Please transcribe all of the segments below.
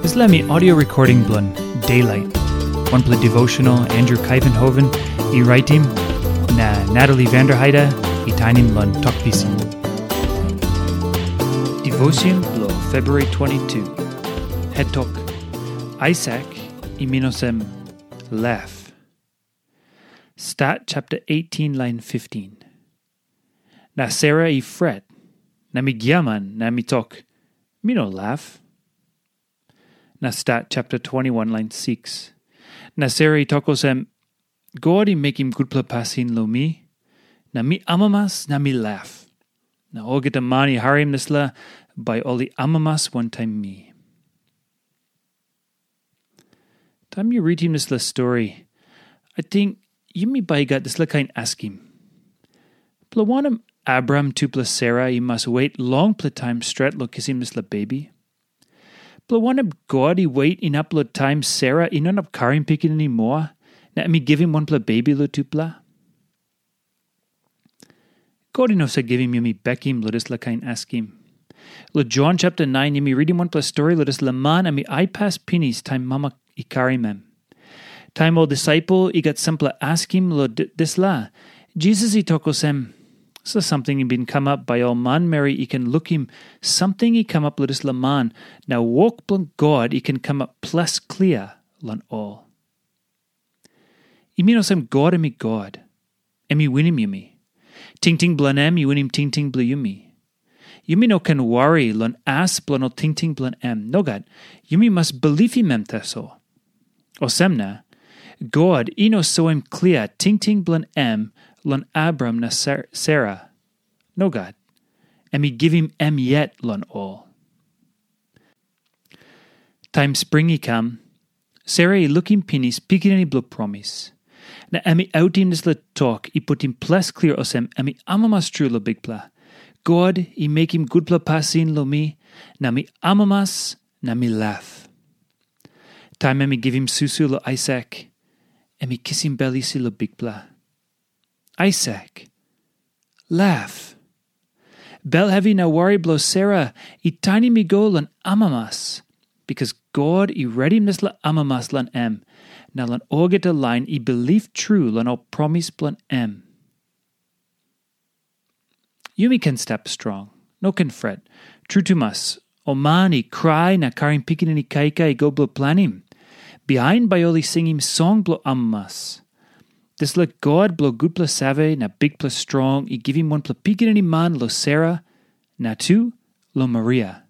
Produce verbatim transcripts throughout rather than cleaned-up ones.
Dispela mi audio recording bilong Daylight. Wanpela devotional Andrew Kaivenhoven i raitim, na Natalie Vanderheide i tainim long Tok Pisin. Devotion bilong February twenty-two. Het tok, Aisak i min olsem laf. Stat chapter eighteen, line fifteen. Na Sera i fret, na mi giaman, na mi tok, mi no laf. Na Stat chapter twenty-one, line six. Na Sera i tok olsem, God i mekim gutpela pasin long mi, na mi amamas na mi laf. Na olgeta man i harim dispela, bai ol i amamas wantaim mi. Taim yu ritim dispela stori, ating yumi bai i gat dispela kain askim. Bilong wanem Abraham tupela Sera i mas wet longpela taim stret long kisim dispela bebi? Bilong wanem God i wet inap long taim Sera i no inap karim pikinini moa, na em i givim wanpela bebi long tupela? God i no save givim yumi bekim long dispela kain askim. Long Jon chapter nine, yumi ritim wanpela stori long dispela man em i aipas pinis taim mama i karim em. Taim ol disaipel i gat sampela askim long dispela, Jisas i tok olsem, dispela samting i bin kamap bai ol manmeri i ken lukim samting i kamap long dispela man, na wok bilong God i ken kamap ples klia long ol. I mean olsem God em i God. Em i winim yumi. Tingting bilong em i winim tingting bilong yumi. Yumi no ken wari long as bilong ol tingting bilong em. Nogat, yumi mas bilipim em tasol. Olsem na, God i no soim klia tingting bilong em long Abraham na Sera. Nogat, em i givim em yet long ol. Taim spring i kam, Sera i lukim pinis pikinini bilong promis. Na em i autim dispela tok i putim ples klia olsem em i amamas tru long Bikpela. God i mekim gutpela pasin long mi, na mi amamas na mi laf. Taim em i givim susu long Aisak, em i kisim bel isi long Bikpela. Aisak, laf. Bel hevi na wari bilong Sera i tainim i go long amamas, bikas God i redim dispela amamas long em, na long olgeta lain i bilip tru long ol promis bilong em. Yumi ken stap strong, no ken fret. Tru tumas, ol man i krai na karim pikinini kaikai i go bilong planim. Bihain bai ol i singim song bilong amamas. Dispela God bilong gutpela save na bikpela strong i givim wanpela pikinini man long Sera, na tu long Maria.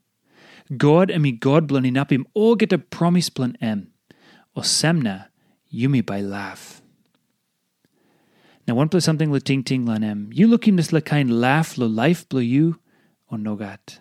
God em i God bilong inapim olgeta promis bilong em. Olsem na yumi bai laf. Na wanpela samting long tingting long em, yu lukim dispela kain laf long laip bilong yu, o nogat?